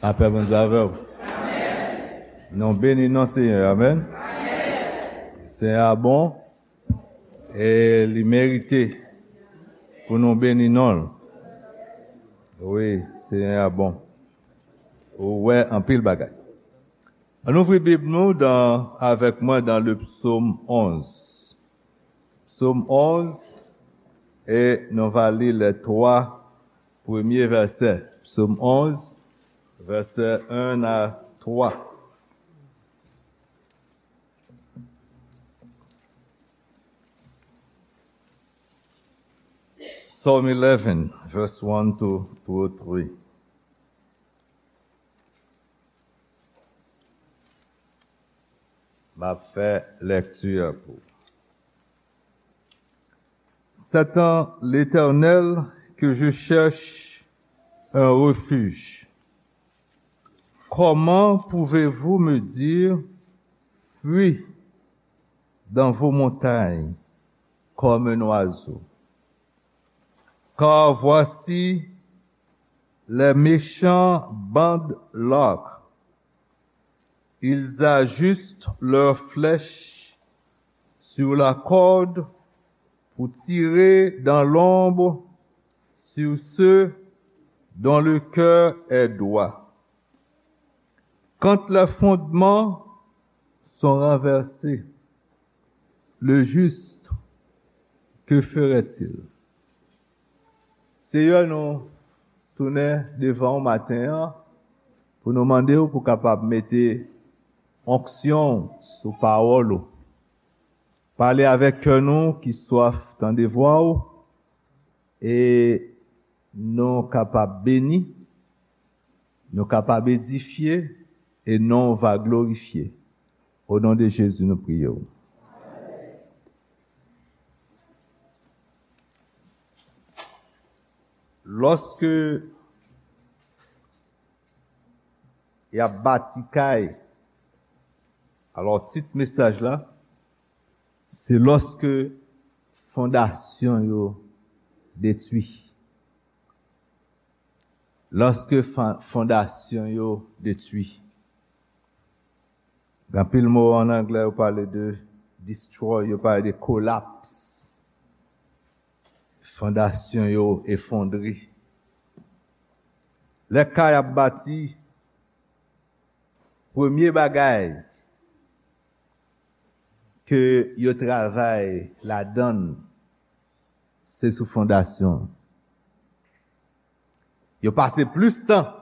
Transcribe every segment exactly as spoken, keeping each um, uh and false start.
Lapè Bondye avè w. Nou beni non Senyè, amèn. Senyè a bon e li merite pou nou beni non l. Wi, Senyè a bon. Ou wè anpil bagay. Ann ouvri Bib nou dan, avèk mwen dan le psaume onze. Psaume onze, e nou va li les trois premiers versets. Psaume onze, verset un à trois. Psalm eleven, verse one to, to three. M ap fè lèkti a pou. C'est en l'Éternel que je cherche un refuge. Comment pouvez-vous me dire, fuis dans vos montagnes comme un oiseau? Car voici, les méchants bandent l'arc. Ils ajustent leurs flèches sur la corde pour tirer dans l'ombre sur ceux dont le cœur est droit. Quand les fondements sont renversés, le juste, que ferait-il? Seyè, nou tounen devan w maten an pou nou mande w pou kapab mete onksyon w sou pawòl ou. Pale avèk kè nou ki swaf tande vwa w, e nou kapab beni, nou kapab edifye, e non w va glorifye. O non de Jezi, nou priye w. Lòske y ap bati kay, alò, tit mesaj la, se lòske fondasyon yo detwi. Lòske fa-, fondasyon yo detwi. Gen anpil mo an anglè, yo pale de destroy, yo pale de kolaps. Fondasyon yo efondre. Lè kay ap bati, premye bagay ke yo travay ladan l, se sou fondasyon. Yo pase plis tan.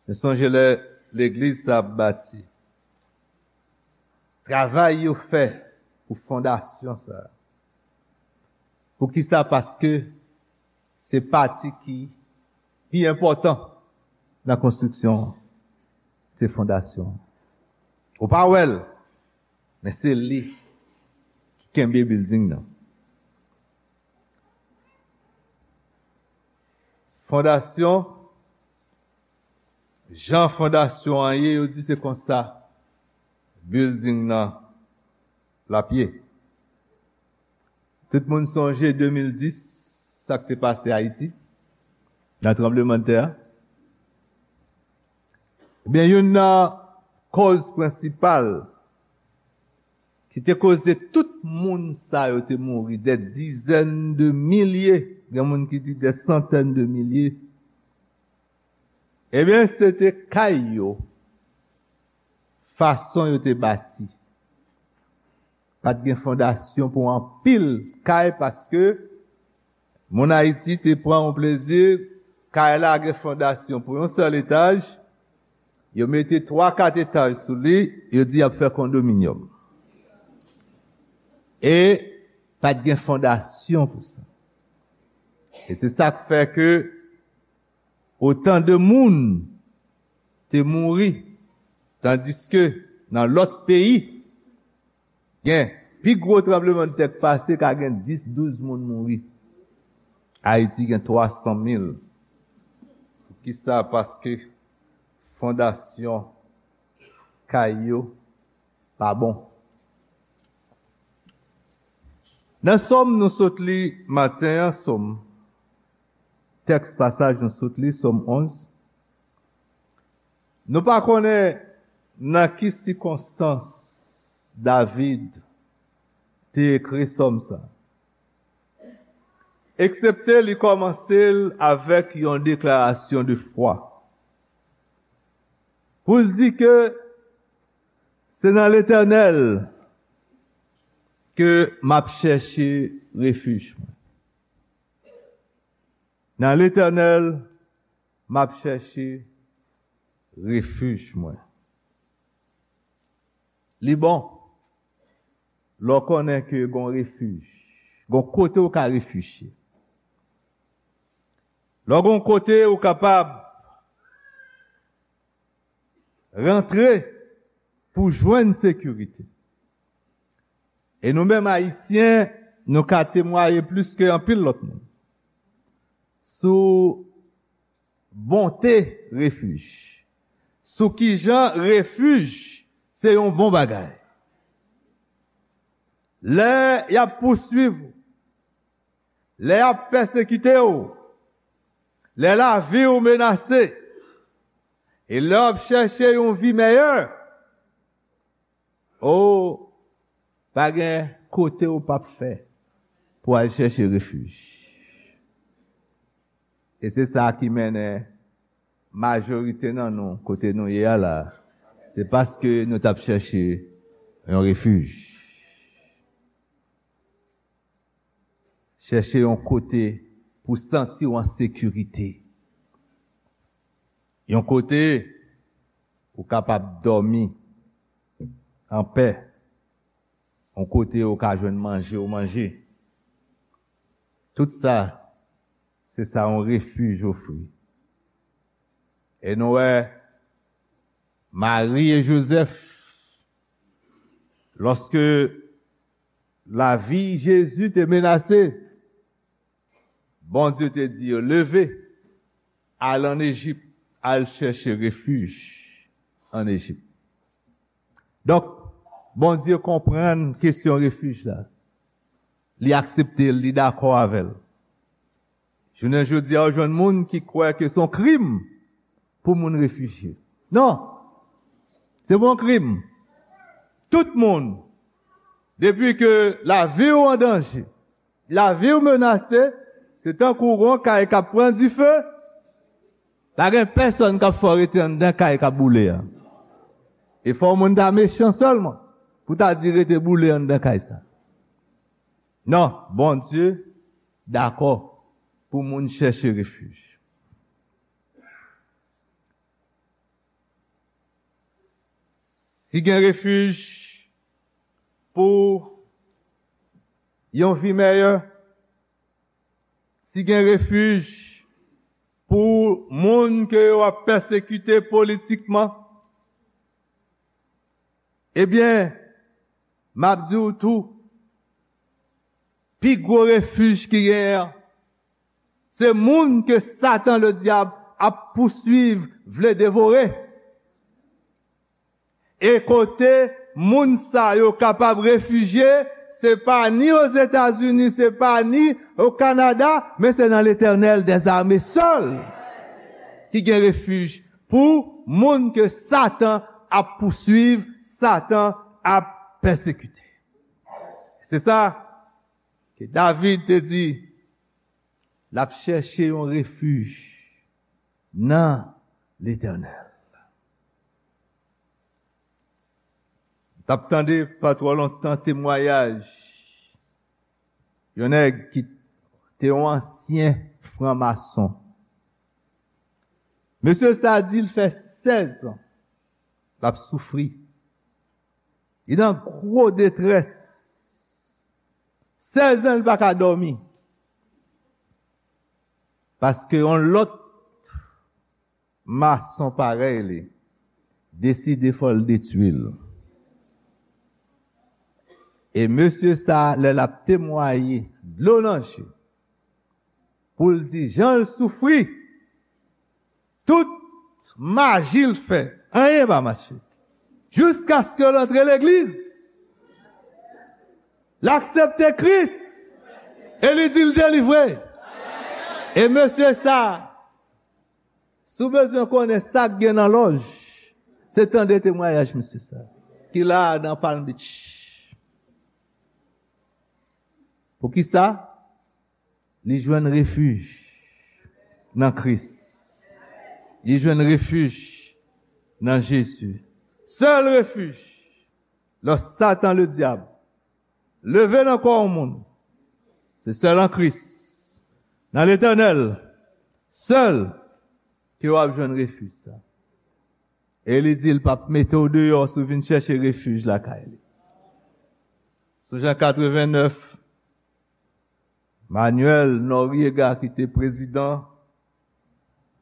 Men sonje lè legliz sa ap bati. Travay yo fè pou fondasyon sa. Poukisa? Paske se pati ki pi enpòtan nan konstriksyon an, se fondasyon an. Ou pa wè l, men se li ki kenbe bilding nan. Fondasyon, jan fondasyon an ye, yo di se konsa bilding nan l ap ye. Tout moun sonje de mil dis, sa k te pase Ayiti, nan tranblemanntè a. Ebyen, youn nan kòz prensipal ki te koze tout moun sa yo te mouri, dè dizèn de milye, gen moun ki di dè santèn de milye. Ebyen, se te kay yo, fason yo te bati. Pa t gen fondasyon pou anpil kay, paske moun Ayiti te pran yon plezi, kay la gen fondasyon pou yon sèl etaj, yo mete twa, kat etaj sou li, yo di y ap fè kondominyòm. E pa t gen fondasyon pou sa. E se sa k fè ke otan de moun te mouri, tandiske nan lòt peyi, gen pi gwo tranblemanntè k pase, ka gen dis, douz moun mouri. Ayiti gen twa san mil. Poukisa? Paske fondasyon kay yo pa bon. Nan Sòm nou sot li maten an, Sòm, tèks pasaj nou sot li, Sòm onz, Nou pa konnen nan ki sikonstans David te ekri sòm sa, eksepte li kòmanse l avèk yon deklarasyon de fwa. Pou l di ke se nan Letènèl ke m ap chèche refij mwen. Nan Letènèl, m ap chèche refij mwen. Li bon lè w konnen ke gon refij, gon kote w ka refijye. Lè w gon kote w kapab rantre pou jwenn sekirite. E nou menm Ayisyen, nou ka temwaye plis ke anpil lòt moun sou bonte refij, sou kijan refij se yon bon bagay. Lè y ap pouswiv ou, lè y ap pèsekite w, lè lavi w menase, e lè w ap chèche yon vi mèyè, o, pa gen kote w p ap fè pou al chèche refij. E se sa ki mennen majorite nan nou kote nou ye a la. Se paske nou t ap chèche yon refij. Chèche yon kote pou santi w an sekirite. Yon kote ou kapab dòmi anpè. Yon kote ou ka jwenn manje ou manje. Tout sa, se sa yon refij ofri. E nou wè Mari e Jozèf, lòske lavi Jezi te menase, Bondye te di yo, "Leve, al ann Ejip, al chèche refij ann Ejip." Donk, Bondye konprann kesyon refij la. Li aksepte l, li dakò avè l. Jounen jodi a, w jwenn moun ki kwè ke se yon krim pou moun refijye. Non, se pa yon krim. Tout moun, depi ke lavi w an danje, lavi w menase, se tankou yon kay k ap pran dife. Pa gen pèsonn k ap fè w rete anndan kay k ap boule a. E fò moun ta mechan sèlman pou ta di rete boule anndan kay sa. Non, Bondye dakò pou moun chèche refij. Si gen refij pou yon vi mèyè, si gen refij pou moun ke yo ap pèsekite politikman, ebyen, m ap di w tou, pi gwo refij ki genyen an, se moun ke Satan Ledyab ap pouswiv, vle devore. E kote moun sa yo kapab refijye, se pa ni Ozetazini, se pa ni o Kanada, men se nan Letènèl dèzame sèl ki gen refij pou moun ke Satan ap pouswiv, Satan ap pèsekite. Se sa ke David te di, l ap chèche yon refij nan Letènèl. M t ap tande pa twò lontan temwayaj yon nèg ki te yon ansyen franmason. Mesye sa di l fè sèz an l ap soufri. Li nan gwo detrès. Sèz an li pa ka dòmi. Paske yon lòt mason parèy li deside fò l detwi l. E mesye sa, lè l ap temwaye, dlo nan je, pou l di jan l soufri, tout maji l fè, anyen pa mache. Jiskaske l antre legliz, l aksepte Kris, e li di l delivre. E mesye sa, si w bezwen konnen sa k gen nan lòj, Se tande temwayaj mesye sa ki la nan Palm Beach. Poukisa? Li jwenn refij nan Kris. Li jwenn refij nan Jezi. Sèl refij lè Satan ledyab leve nan kò yon moun, se sèl an Kris, nan Letènèl sèl, ke w ap jwenn refij sa. E li di l p ap mete w deyò si w vin chèche refij lakay li. Sou Jan katrevennnèf, Manuel Noriega ki te prezidan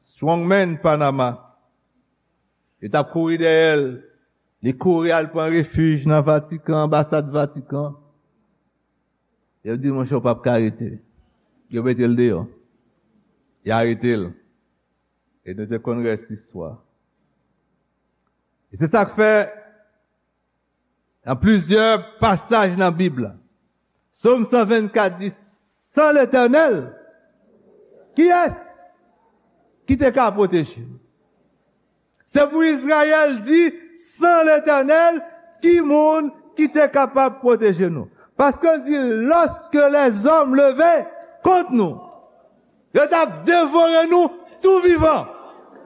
Strongman Panama, yo t ap kouri dèyè l. Li kouri al pran refij nan Vatikan, anbasad Vatikan. Yo di, monchè, w p ap ka rete. Yo mete l deyò. Yo arete l. E nou te konn rès istwa. E se sa k fè, nan plizyè pasaj nan Bib la, Sòm san vennkat di, san Letènèl, kiyès ki te ka pwoteje nou? Se pou Izrayèl di, san Letènèl, ki moun ki te kapab pwoteje nou? Paske l di, lorsque les hommes levaient contre nous, yo t ap devore nou tou vivan.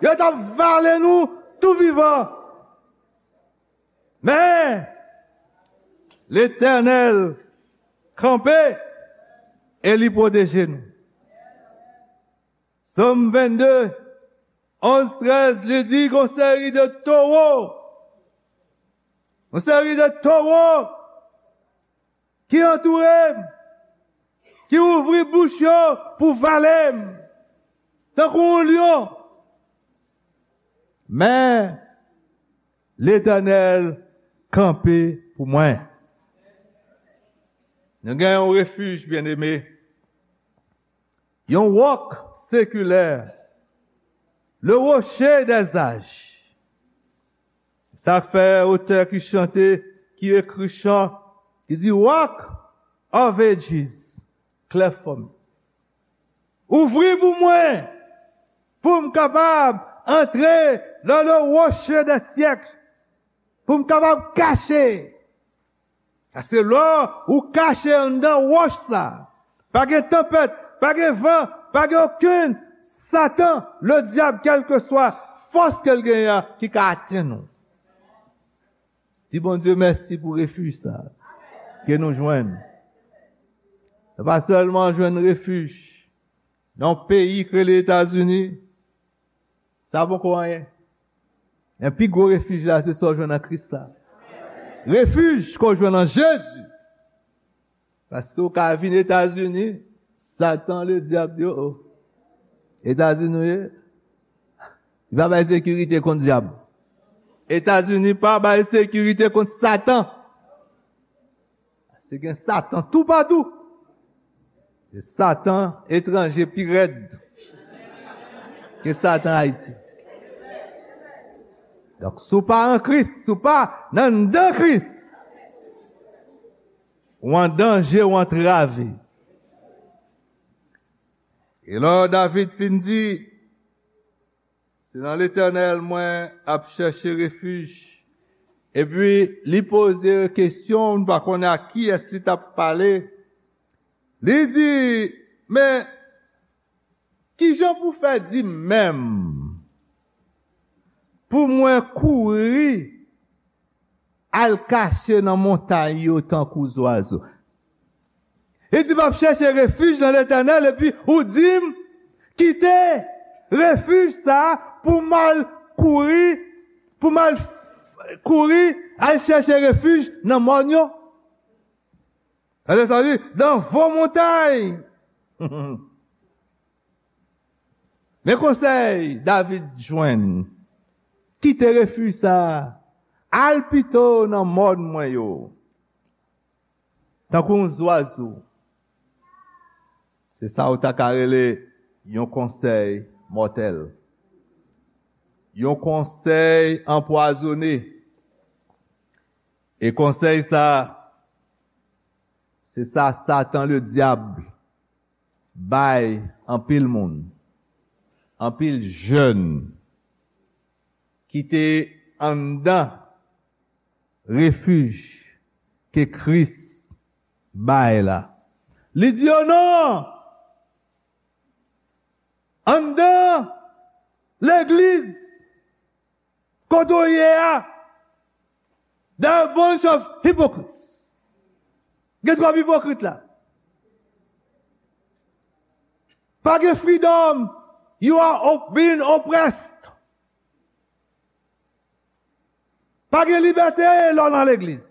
Yo t ap vale nou tou vivan. Men, Letènèl kanpe e li pwoteje nou. Sòm vennde, onz, trèz, li di, gon seri de towo, gon seri de towo ki antoure m, ki ouvri bouch yo pou vale m, tankou yon lyon. Men, Letènèl kanpe pou mwen. Nou gen yon refij, byeneme. Yon wòk sekilè. Le rocher des âges. Sa k fè otè ki chante, ki ekri chan, ki di, Rock of Ages, cleft for me. Ouvri pou mwen, pou m kapab antre dans le rocher des siècles, pou m kapab kache. Paske lè ou kache anndan wòch sa, pa gen tanpèt, pa gen van, pa gen okenn Satan, ledyab, kèlkeswa fòs ke l genyen an, ki ka atenn ou. Di Bondye mèsi pou refij sa ke nou jwenn. Nou pa sèlman jwenn refij nan yon peyi k rele Etazini, sa poko anyen. Men pi gwo refij la, se sa w jwenn nan Kris la. Refij ke w jwenn nan Jezi. Paske w ka vin Etazini, Satan ledyab di, o, o. Etazini w ye? Li pa bay sekirite kont dyab. Etazini pa bay sekirite kont Satan. Se gen Satan toupatou. E Satan etranje pi rèd ke Satan Ayiti. Donk, si w pa an Kris, si w pa nan, anndan Kris, ou an danje, ou antrave. E lè David fin di, se nan Letènèl mwen ap chèche refij. Epi li poze kesyon, m pa konnen ak kiyès li t ap pale. Li di, men, kijan pou fè di menm pou mwen kouri al kache nan montay yo tankou zwazo? Li di, m ap chèche refij nan Letènèl, epi ou di m kite refij sa a pou m al kouri, pou m al f-, kouri al chèche refij nan mòn yo. Sa vle di, dans vos montagnes. Men konsèy David jwenn, kite refij sa a, al pito nan mòn mwen yo. Tankou yon zwazo. Se sa ou ta ka rele yon konsèy mòtèl. Yon konsèy anpwazonnen. E konsèy sa, se sa Satan ledyab bay anpil moun, anpil jèn ki te anndan refij ke Kris bay la. Li di yo non! Anndan legliz kote w ye a, there are a bunch of hypocrites. Gen twòp ipokrit la. Pa gen freedom. You are op- being oppressed. Pa gen libète lè w nan legliz.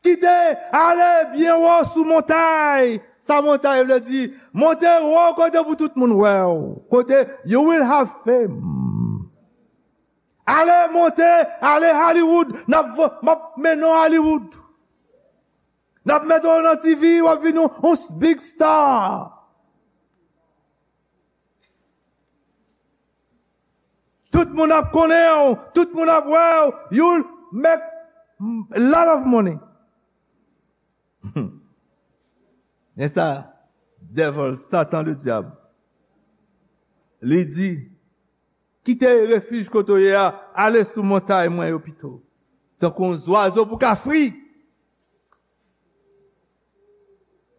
Kite ale byen wo sou montay. Sa montay vle di? Monte wo kote pou tout moun wè w. Kote you will have fame. Ale monte, ale Hollywood. N ap vo- m ap mennen w Hollywood. N ap mete w nan T V, w ap vin yon, yon big star. Tout moun ap konnen w, tout moun ap wè w, you'll make a lot of money. Men sa, devil, Satan, le diable, li di, kite refij kote w ye a, ale sou montay mwen yo pito. Tankou yon zwazo pou ka fri.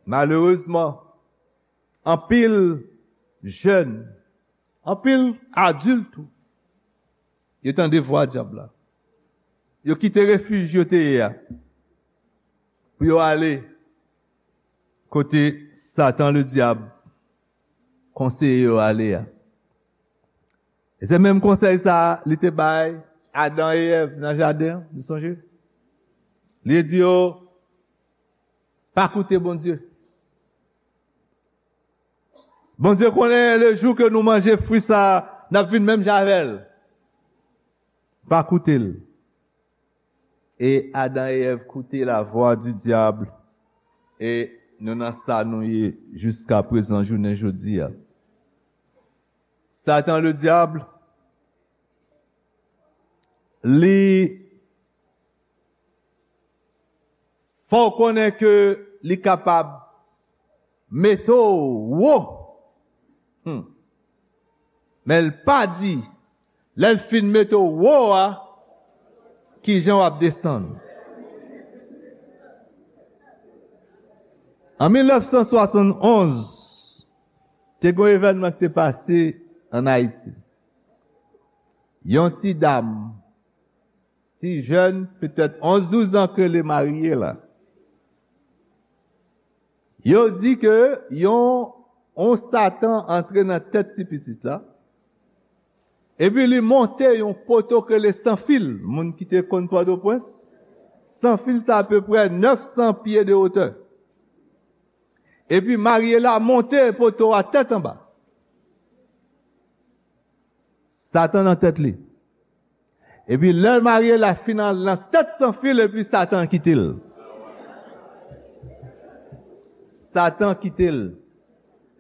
Malerezman, anpil jèn, anpil adilt tou, yo tande vwa dyab la. Yo kite refij yo te ye a pou yo ale kote Satan le dyab konseye yo ale a. E se menm konsèy sa a li te bay Adan e Èv nan jaden an, nou sonje? Li di yo, pa koute Bondye. Bondye konnen le jou ke nou manje fwi sa a, n ap vin menm jan avè l. Pa koute l. E Adan e Èv koute la vwa di dyab, e nou nan sa nou ye jiska prezan, jounen jodi a. Satan le dyab, li fè w konnen ke li kapab mete w wo. Hmm. Men l pa di, lè l fin mete w wo a, ki jan w ap desann. An mil nèf san swasann onz, te gen yon evènman ki te pase ann Ayiti. Yon ti dam, ti jèn, petèt onz, douz an, k rele Mariela. Yo di ke yon, yon Satan antre nan tèt ti pitit la, epi li monte yon poto k rele Sanfil. Moun ki te konn Pòtoprens, Sanfil sa apeprè nèf san pye de wotè. Epi Mariela monte poto a tèt anba. Satan nan tèt li. Epi lè Mariela fin al nan tèt Sanfil, epi Satan kite l. Satan kite l.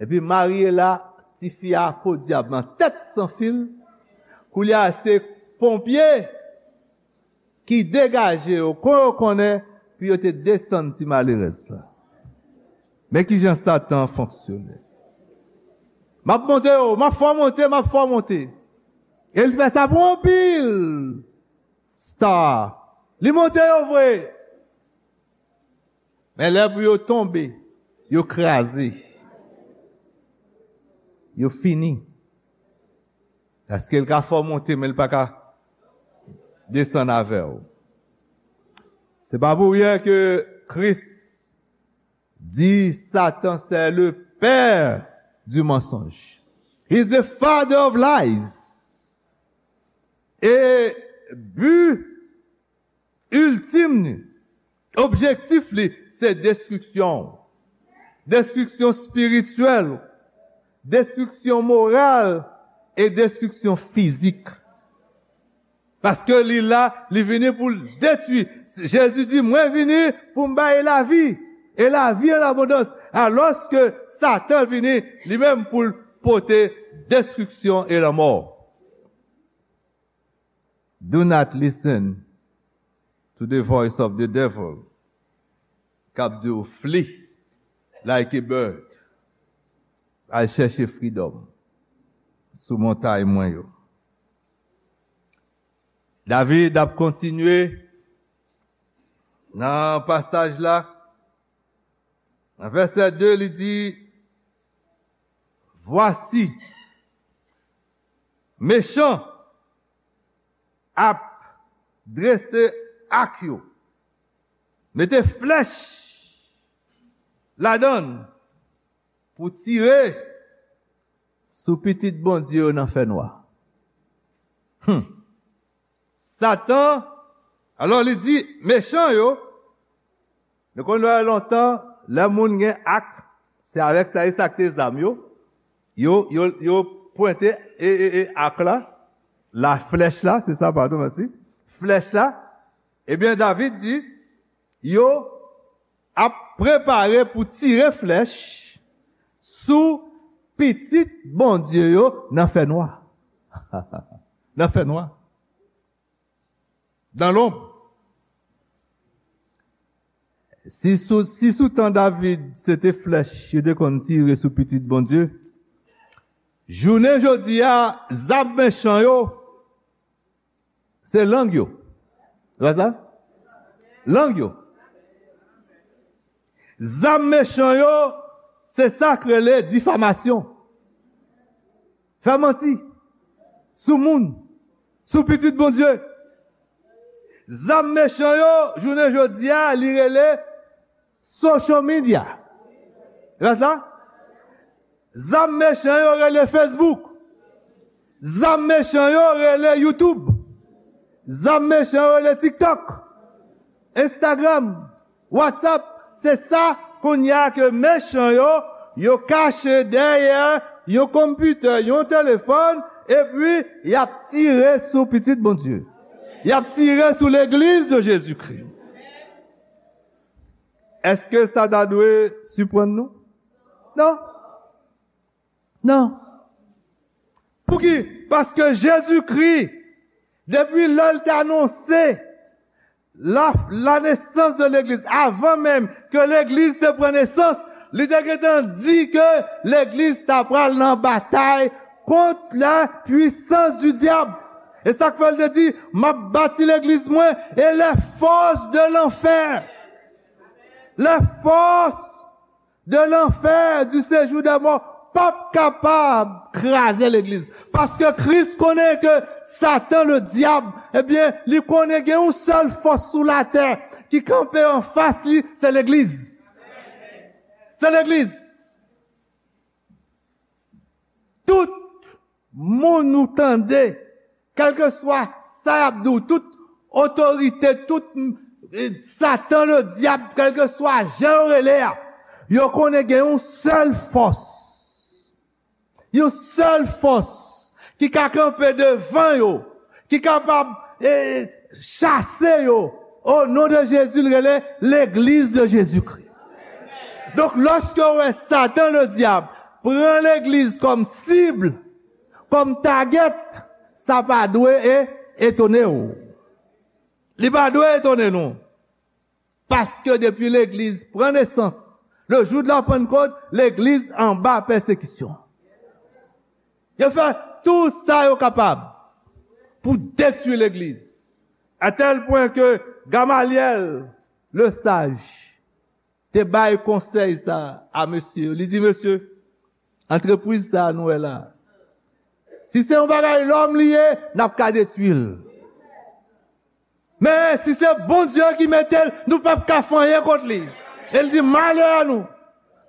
Epi Mariela, tifi a podyab nan tèt Sanfil. Koulye a se ponpye ki degaje yo, kon yo konnen, pou yo te desann ti malerèz sa. Men ki jan Satan fonksyone. M ap monte yo, m ap fè w monte, m ap fè w monte. E l fè sa pou anpil star. Li monte yo vre. Men lè pou yo tonbe, yo kraze. Yo fini. Paske l ka fè w monte, men l pa ka desann avè w. Se pa pou ryen ke Kris di Satan c'est le père du mensonge. He's the father of lies. E bi iltim li, objektif li, se destriksyon. Destriksyon espirityèl, destriksyon moral e destriksyon fizik. Paske li la, li vini pou l detwi. Jezi di, mwen vini pou m bay lavi, e lavi an abondans. Alòske Satan vini, li menm, pou l pote destriksyon e lanmò. Do not listen to the voice of the devil k ap di w flee like a bird. Al chèche freedom sou montay mwen yo. David ap kontinye nan pasaj la. Nan vèsè de, li di, Vwasi, mechan ap drese ak yo, mete flèch ladan l pou tire sou pitit Bondye yo nan fènwa. Hmm. Satan, alò li di, mechan yo, nou konn wè lontan, lè moun gen ak, se avèk sa, e sa k te zam yo, yo, yo, yo pwente e, e, e ak la, la flèch la, se sa, padon, mèsi, flèch la, ebyen, David di, yo ap prepare pou tire flèch sou pitit Bondye yo nan fènwa. Nan fènwa. Dans l'ombre. Si sou, si sou tan David, se te flèch yo te konn tire sou pitit Bondye, jounen jodi a, zam mechan yo, se lang yo. Se pa sa? Lang yo. Zam mechan yo, se sa k rele difamasyon. Fè manti sou moun, sou pitit Bondye. Zam mechan yo, jounen jodi a, li rele social media. Se pa sa? Zam mechan yo rele Facebook. Zam mechan yo rele YouTube. Zam mechan yo rele TikTok, Instagram, WhatsApp. Se sa kounye a ke mechan yo, yo kache dèyè yon konpitè, yon telefòn, epi y ap tire sou pitit Bondye. Y ap tire sou legliz de Jezikri. Èske sa ta dwe siprann nou? Non. Non. Pouki? Paske Jezikri, depi lè l te anonse la, la nesans de legliz, avan menm ke legliz te pran nesans, li te gentan di ke legliz ta pral nan batay kont la pwisans di dyab. E sa k fè l te di, m ap bati legliz mwen, e les forces de l'enfer, les forces de l'enfer, du séjour des morts, p ap kapab kraze legliz. Paske Kris konnen ke Satan, le dyab, ebyen, li konnen gen yon sèl fòs sou latè ki kanpe anfas li, se legliz. Se legliz. Tout moun ou tande, kèlkeswa sa y ap di w, tout otorite, tout, mm, Satan, le dyab, kèlkeswa jan yo rele a, yo konnen gen yon sèl fòs. Yon sèl fòs ki ka kanpe devan yo, ki kapab, eh, chase yo. O non de Jezi, l rele legliz de Jezikri. Donk, lòske w wè Satan, le dyab, pran legliz kòm sib, kòm target, sa pa dwe e, etone w. Li pa dwe etone nou. Paske depi legliz pran nesans, le jou de la Pentecôte, legliz anba pèsekisyon. Yo fè tou sa yo kapab pou detwi legliz. A tèl pwen ke Gamalyèl, le saj, te bay konsèy sa a mesye yo. Li di, mesye, antrepriz sa a nou wè la, si se yon bagay lòm li ye, n ap ka detwi l. Men si se Bondye ki mete l, nou p ap ka fè anyen kont li. E l di, malè a nou,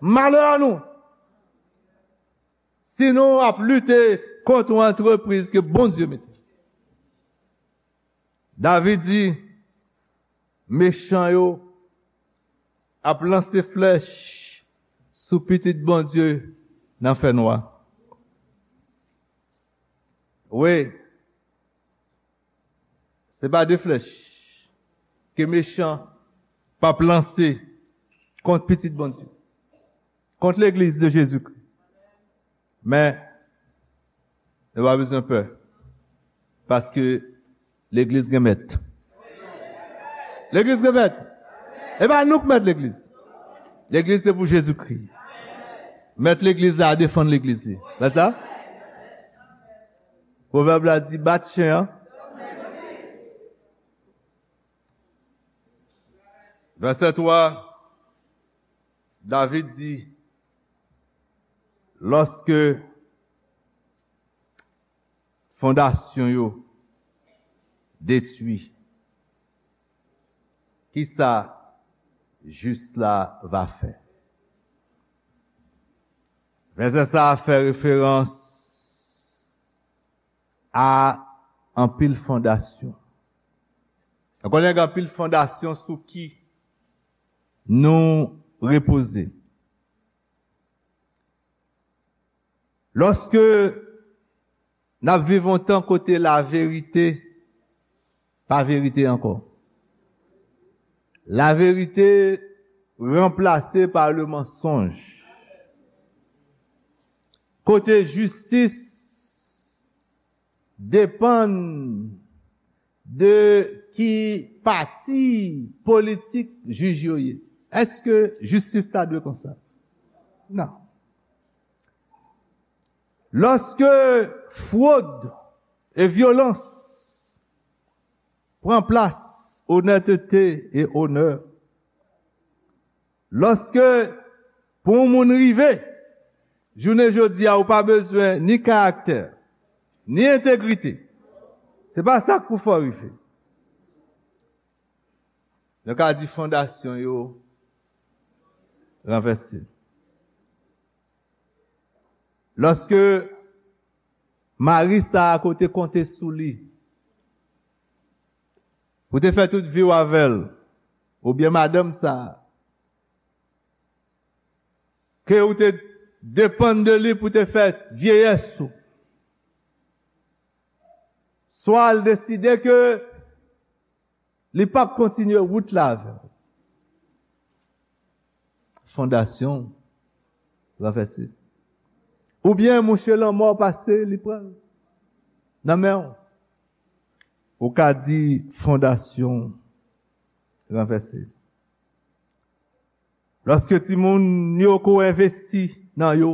malè a nou, si nou ap lite kont yon antrepriz ke Bondye mete. David di, mechan yo ap lanse flèch sou pitit Bondye nan fènwa. Wi, se pa de flèch ke mechan p ap lanse kont pitit Bondye, kont legliz de Jezikri. Men, nou pa bezwen pè, paske legliz gen mèt. Legliz gen mèt. E pa nou k mèt legliz. Legliz se pou Jezikri. Mèt legliz la defann legliz li. Pa sa? Pwovèb la di, bat chen an Vèsè twa, David di, lòske fondasyon yo detwi, kisa jis la va fè? Vèsè sa a fè referans a anpil fondasyon. Nou konnen gen anpil fondasyon sou ki nou repoze. Lòske n ap viv yon tan kote laverite pa verite ankò. Laverite ranplase pa le mansonj. Kote jistis depann de ki pati politik jij yo ye. Èske jistis ta dwe konsa? Non. Lòske fwod e vyolans pran plas onètete e onè, lòske pou yon moun rive, jounen jodi a, ou pa bezwen ni karaktè, ni entegrite. Se pa sa k pou fè w rive. Nou ka di fondasyon yo ranvèse. Lòske mari sa a ke w te konte sou li, ou te fè tout vi w avè l, oubyen madanm sa a, ke ou te depann de li pou te fè vyeyès ou, swa l deside ke li p ap kontinye wout la avè w. Fondasyon ranvèse. Oubyen mouche lanmò pase, li pran l nan men w. Ou ka di fondasyon ranvèse. Lòske timoun yo ke w envesti nan yo,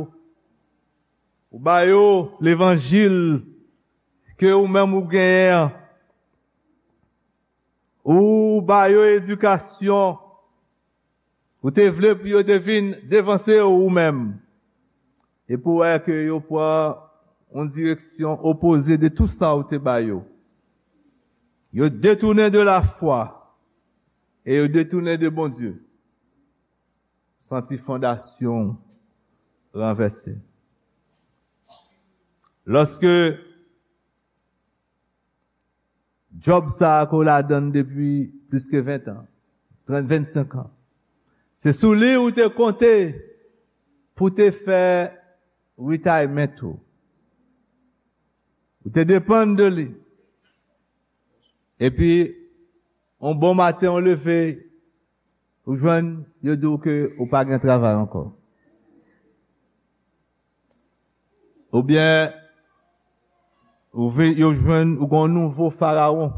ou ba yo levanjil ke ou menm ou genyen an, ou ba yo edikasyon, ou te vle pou yo te vin devanse w ou menm, epi w wè ke yo pran yon direksyon opoze de tout sa ou te ba yo. Yo detounen de lafwa e yo detounen de Bondye. Santi fondasyon ranvèse. Lòske djòb sa a ke w ladan l depi plis ke ven an, trant, vennsenk an, se sou li ou te konte pou te fè retirement ou. Ou te depann de li. Epi, yon bon maten, ou leve, ou jwenn, yo di w ke ou pa gen travay ankò. Oubyen, ou vi-, yo jwenn, ou gen yon nouvo farawon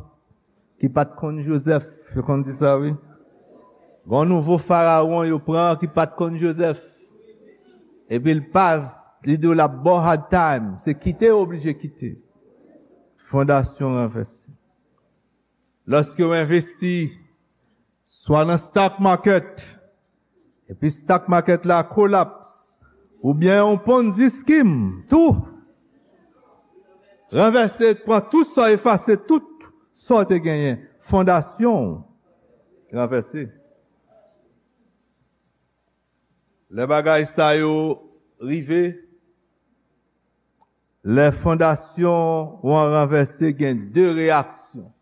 ki pa t konn Jozèf. Yo konn di sa, wi. Gen yon nouvo farawon yo pran ki pa t konn Jozèf. Epi l pa, li di w l ap ba w hard time. Se kite, ou oblije kite. Fondasyon ranvèse. Lòske w envesti, swa nan stock market, epi stock market la kolaps, oubyen yon Ponzi scheme, tou ranvèse, pran tout sa, efase tout sa w te genyen, fondasyon w ranvèse. Lè bagay sa yo rive, lè fondasyon w an ranvèse, gen de reyaksyon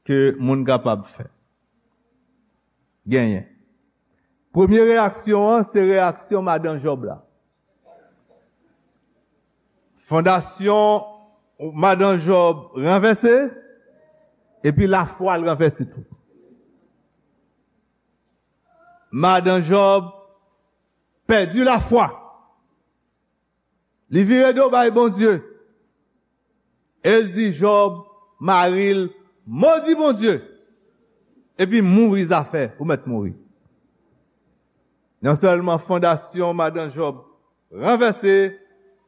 ke moun kapab fè. Genyen. Premye reyaksyon an, se reyaksyon madan Jòb la. Fondasyon madan Jòb ranvèse, epi lafwa l ranvèse tou. Madan Jòb pèdi lafwa. Li vire do bay Bondye. E l di Jòb, mari l, modi Bondye, epi mouri zafè, ou mèt mouri. Non sèlman fondasyon madan Jòb ranvèse,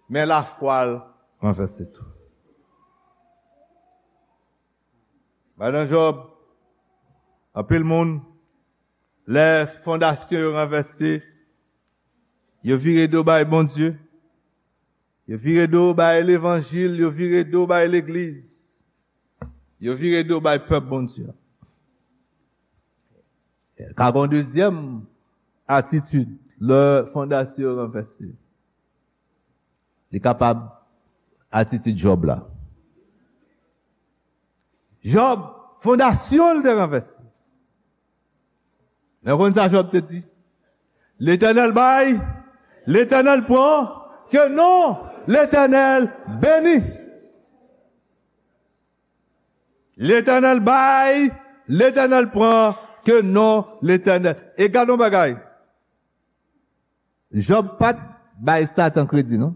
men lafwa l ranvèse tou. Madan Jòb, anpil moun Lè fondasyon yo ranvèse, yo vire do bay Bondye, yo vire do bay levanjil, yo vire do bay legliz, yo vire do bay pèp Bondye. Ka gen yon dezyèm atitid lè fondasyon yo ranvèse. Li kapab atitid Jòb la. Jòb, fondasyon l te ranvèse. Men w konn sa Jòb te di? Letènèl bay, Letènèl pran, ke non Letènèl beni. Letènèl bay, Letènèl pran, ke non Letènèl. E gade yon bagay. Jòb pa t bay Satan kredi, non.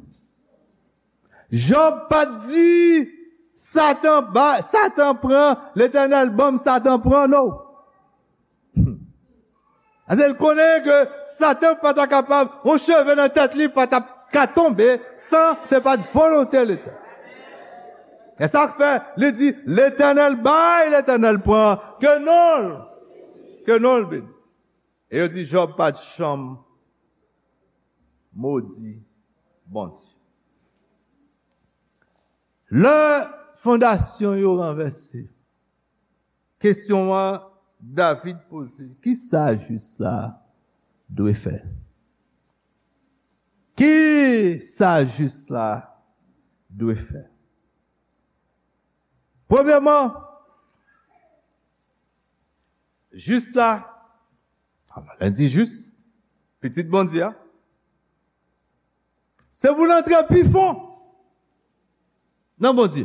Jòb pa t di, Satan ba, Satan pran, Letènèl ban m, Satan pran, non. Paske l konnen ke Satan pa ta kapab, yon cheve nan tèt li pa ta ka tonbe san se pa t volonte Letènèl. E sa k fè li di, Letènèl bay, Letènèl pran, ke non l, ke non l beni. E yo di Jòb pa t janm modi Bondye. Lè fondasyon yo ranvèse, kesyon an David poze, kisa jis la dwe fè? Kisa jis la dwe fè? Premyèman, jis la, alò, lè n di jis, pitit Bondye a, se pou n antre pi fon nan Bondye.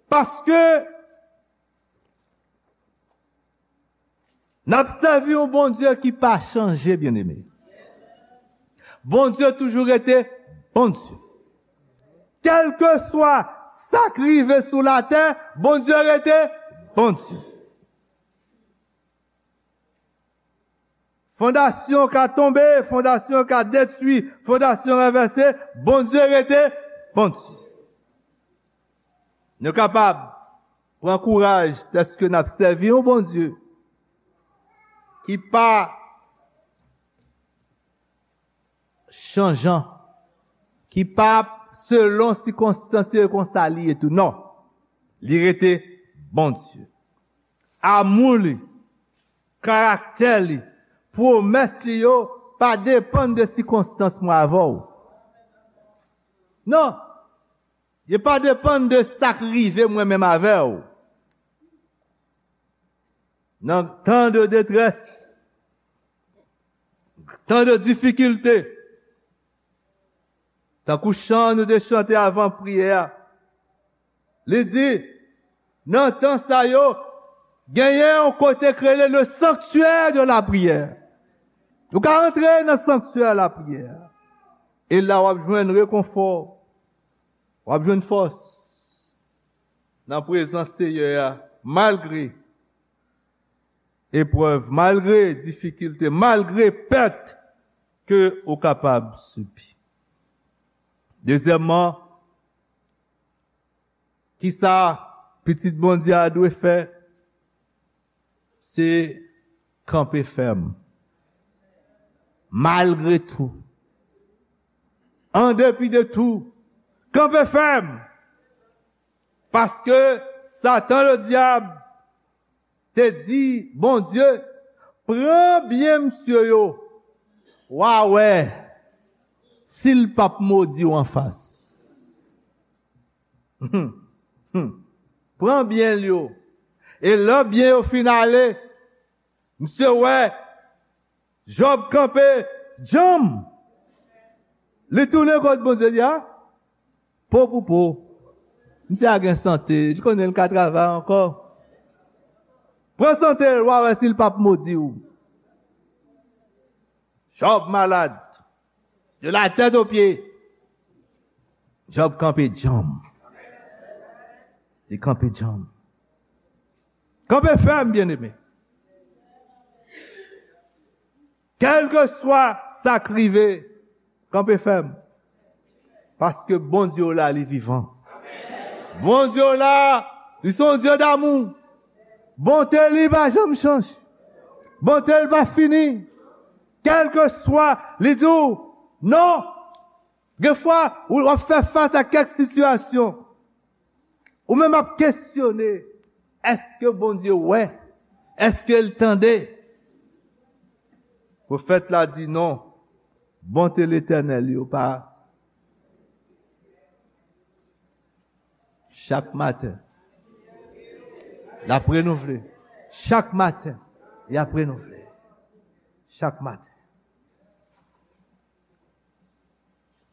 Paske n ap sèvi yon Bondye ki pa chanje, byeneme. Bondye toujou rete Bondye. Kèlkeswa sa k rive sou latè, Bondye rete Bondye. Fondasyon ka tonbe, fondasyon ka detwi, fondasyon ranvèse, Bondye rete Bondye. Nou kapab pran kouraj dèske n ap sèvi yon Bondye ki pa chanjan, ki pa selon sikonstans yo e konsa li ye tou. Non, li rete Bondye. Amou li, karaktè li, pwomès li yo pa depann de sikonstans mwen avè w. Non, yo pa depann de sa k rive mwen menm avè w. Nan tan de detrès, tan de difikilte, tankou chan nou te chante avan priyè a, li di, nan tan sa yo, genyen yon kote k rele le sanctuaire de la prière. Ou ka antre nan sanktyè lapriyè a. E la w ap jwenn rekonfò, w ap jwenn fòs nan prezans Seyè a, malgre eprèv, malgre difikilte, malgre pèt ke ou kapab sibi. Dezyèmman, kisa pitit Bondye a dwe fè? Se kanpe fèm. Malgre tou. An depi de tou. Kanpe fèm. Paske Satan, le dyab, te di Bondye, pran byen misye yo. W a wè si l p ap modi w anfas. Pran byen l yo. E lè byen yo fin ale, misye wè Jòb kanpe djanm. Li tounen kot Bondye, li di, a, po pou po. Misye a gen sante, li konnen l ka travay ankò. Pran sante l, w a wè si l p ap modi w. Jòb malad. De la tèt o pye. Jòb kanpe djanm. Li kanpe djanm. Kanpe fèm, byeneme. Kèlkeswa sa k rive, kanpe fèm. Paske Bondye w la, li vivan. Bondye w la, li se yon Dye damou. Bonte li pa janm chanje. Bonte l pa fini. Kèlkeswa, li di w, non. Gen fwa, ou w ap fè fas a kèk sitiyasyon. Ou menm ap kesyone, èske Bondye wè? Èske l tande? Pwofèt la di non. Bonte Letènèl yo pa chak maten. L ap renouvle. Chak maten, y ap renouvle. Chak maten.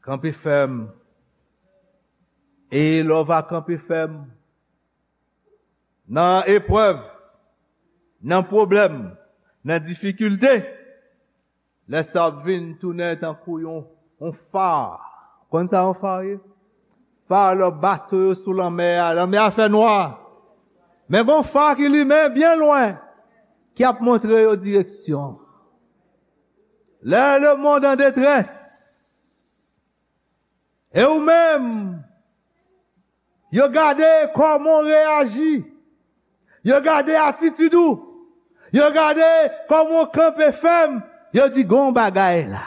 Kanpe fèm. E lè w va kanpe fèm nan eprèv, nan pwoblèm, nan difikilte, lè sa ap vin tounen tankou yon, yon fa. Konn sa yon fa ye? Fa lè bato yo sou lanmè a, lanmè a fè nwa. Men gon fa ki limen byen lwen, ki ap montre yo direksyon. Lè le monde en détresse, e ou menm, yo gade kòman w reyaji. Yo gade atitid ou. Yo gade kòman w kanpe fèm. Yo di, gon bagay la.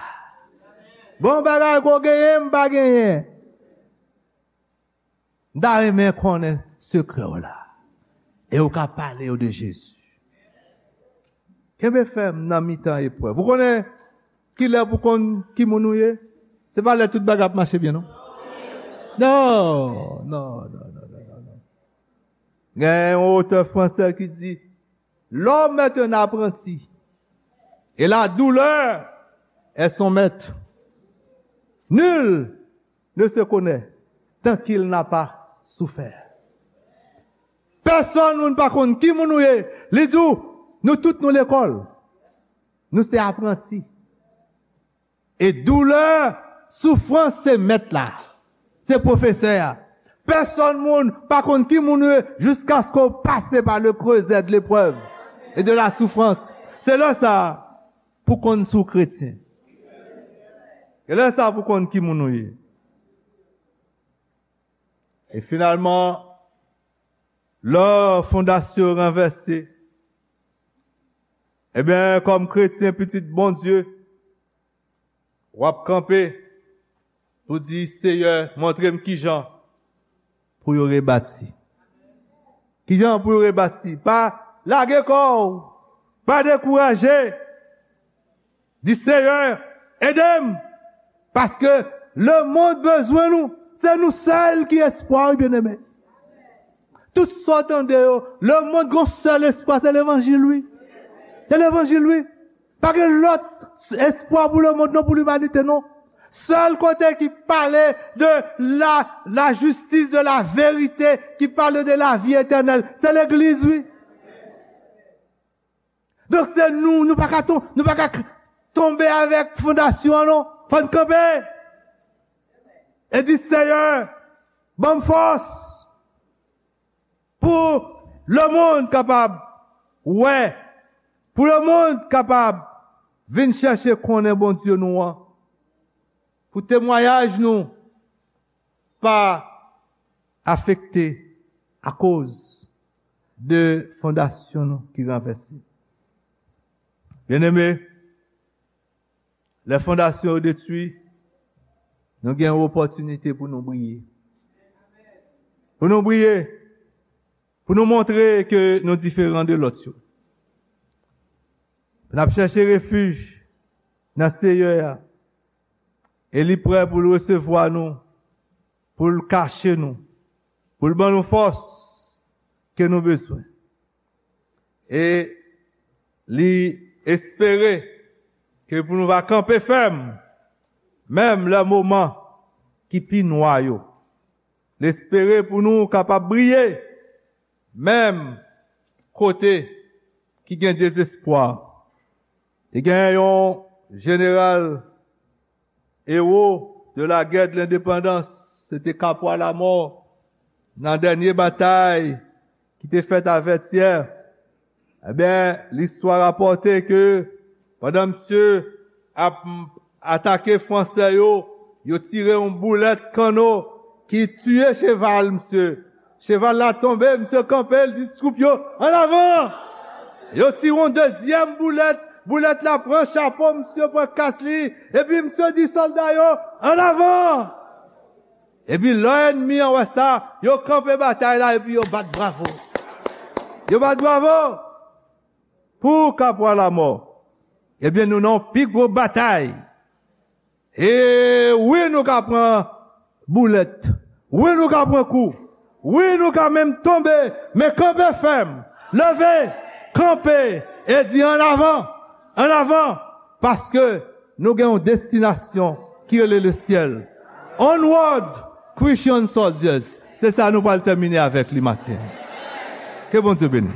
Gon bagay ke w genyen, m pa genyen. M ta renmen konnen sekrè w la. E w ka pale yo de Jezi. Kenbe fèm nan mitan eprèv. Ou konnen kilè pou konn ki moun ou ye? Se pa lè tout bagay ap mache byen, non. Non, non, non, non, non, non. Gen yon otè fransè ki di, l'homme est un apprenti, et la douleur est son maître. Nul ne se connaît tant qu'il n'a pas souffert. Pèsonn moun pa konn ki moun ou ye. Li di w, nou tout nou lekòl. Nou se apranti. E doulè, soufrans se mèt la. Se pwofesè a. Pèsonn moun pa konn ki moun ou ye jiskaske w pase pa le creuset de l'épreuve et de la souffrance. Se lè sa a pou konn si w kretyen. E lè sa a pou konn ki moun ou ye. E finalman, lè fondasyon yo ranvèse, ebyen, kòm kretyen, pitit Bondye, w ap kanpe pou di, Seyè, montre m kijan pou yo rebati. Kijan pou yo rebati? Pa lage kò w, pa dekouraje. Di, Seyè, ede m, paske lemonn bezwen nou. Se nou sèl ki espwa, wi, byeneme. Tout sa w tande yo, lemonn gen yon sèl espwa, se levanjil, wi. Se levanjil, wi. Pa gen lòt espwa pou lemonn, non, pou limanite, non. Sèl kote ki pale de la, la justice, de la vérité, ki pale de la vie éternelle, se legliz, wi. Donk, se nou, nou pa ka ton-, nou pa ka k-, tonbe avèk fondasyon an, non. Fò n kanpe. E di, Seyè, ban m fòs pou lemonn kapab wè, pou lemonn kapab vin chèche konnen Bondye nou an, pou temwayaj nou pa afekte akoz de fondasyon nou ki ranvèse. Byeneme, lè fondasyon yo detwi, nou gen yon opòtinite pou nou briye. Pou nou briye, pou nou montre ke nou diferan de lòt yo. N ap chèche refij nan Seyè a, e li prè pou l resevwa nou, pou l kache nou, pou l ban nou fòs ke nou bezwen. E li espere ke pou nou va kanpe fèm, menm lè moman ki pi nwa yo. L espere pou nou kapab briye, menm kote ki gen dezespwa. Te gen yon jeneral, ewo de la guerre de l'indépendance, se te Kapwa Lamò, nan dènye batay ki te fèt a Vètyè. Ebyen, listwa rapòte ke pandan misye ap atake Fransè yo, yo tire yon boulèt kanno ki tiye cheval misye. Cheval la tonbe, misye kanpe, l di twoup yo, "An avan!" Yo tire yon dezyèm boulèt, boulèt la pran chapo misye, pran kas li, epi misye di sòlda yo, "An avan!" Epi lè ènmi an wè sa, yo kanpe batay la epi yo bat bravo. Yo bat bravo pou Kapwa Lamò. Ebyen, nou nan yon pi gwo batay. E wi, nou ka pran boulèt. Wi, nou ka pran kou. Wi, nou ka menm tonbe. Men kanpe fèm. Leve, kanpe, e di, "An avan, an avan." Paske nou gen yon destinasyon ki rele lesyèl. Onward, Christian soldiers. Se sa nou pral tèmine avèk li maten. Ke Bondye beni.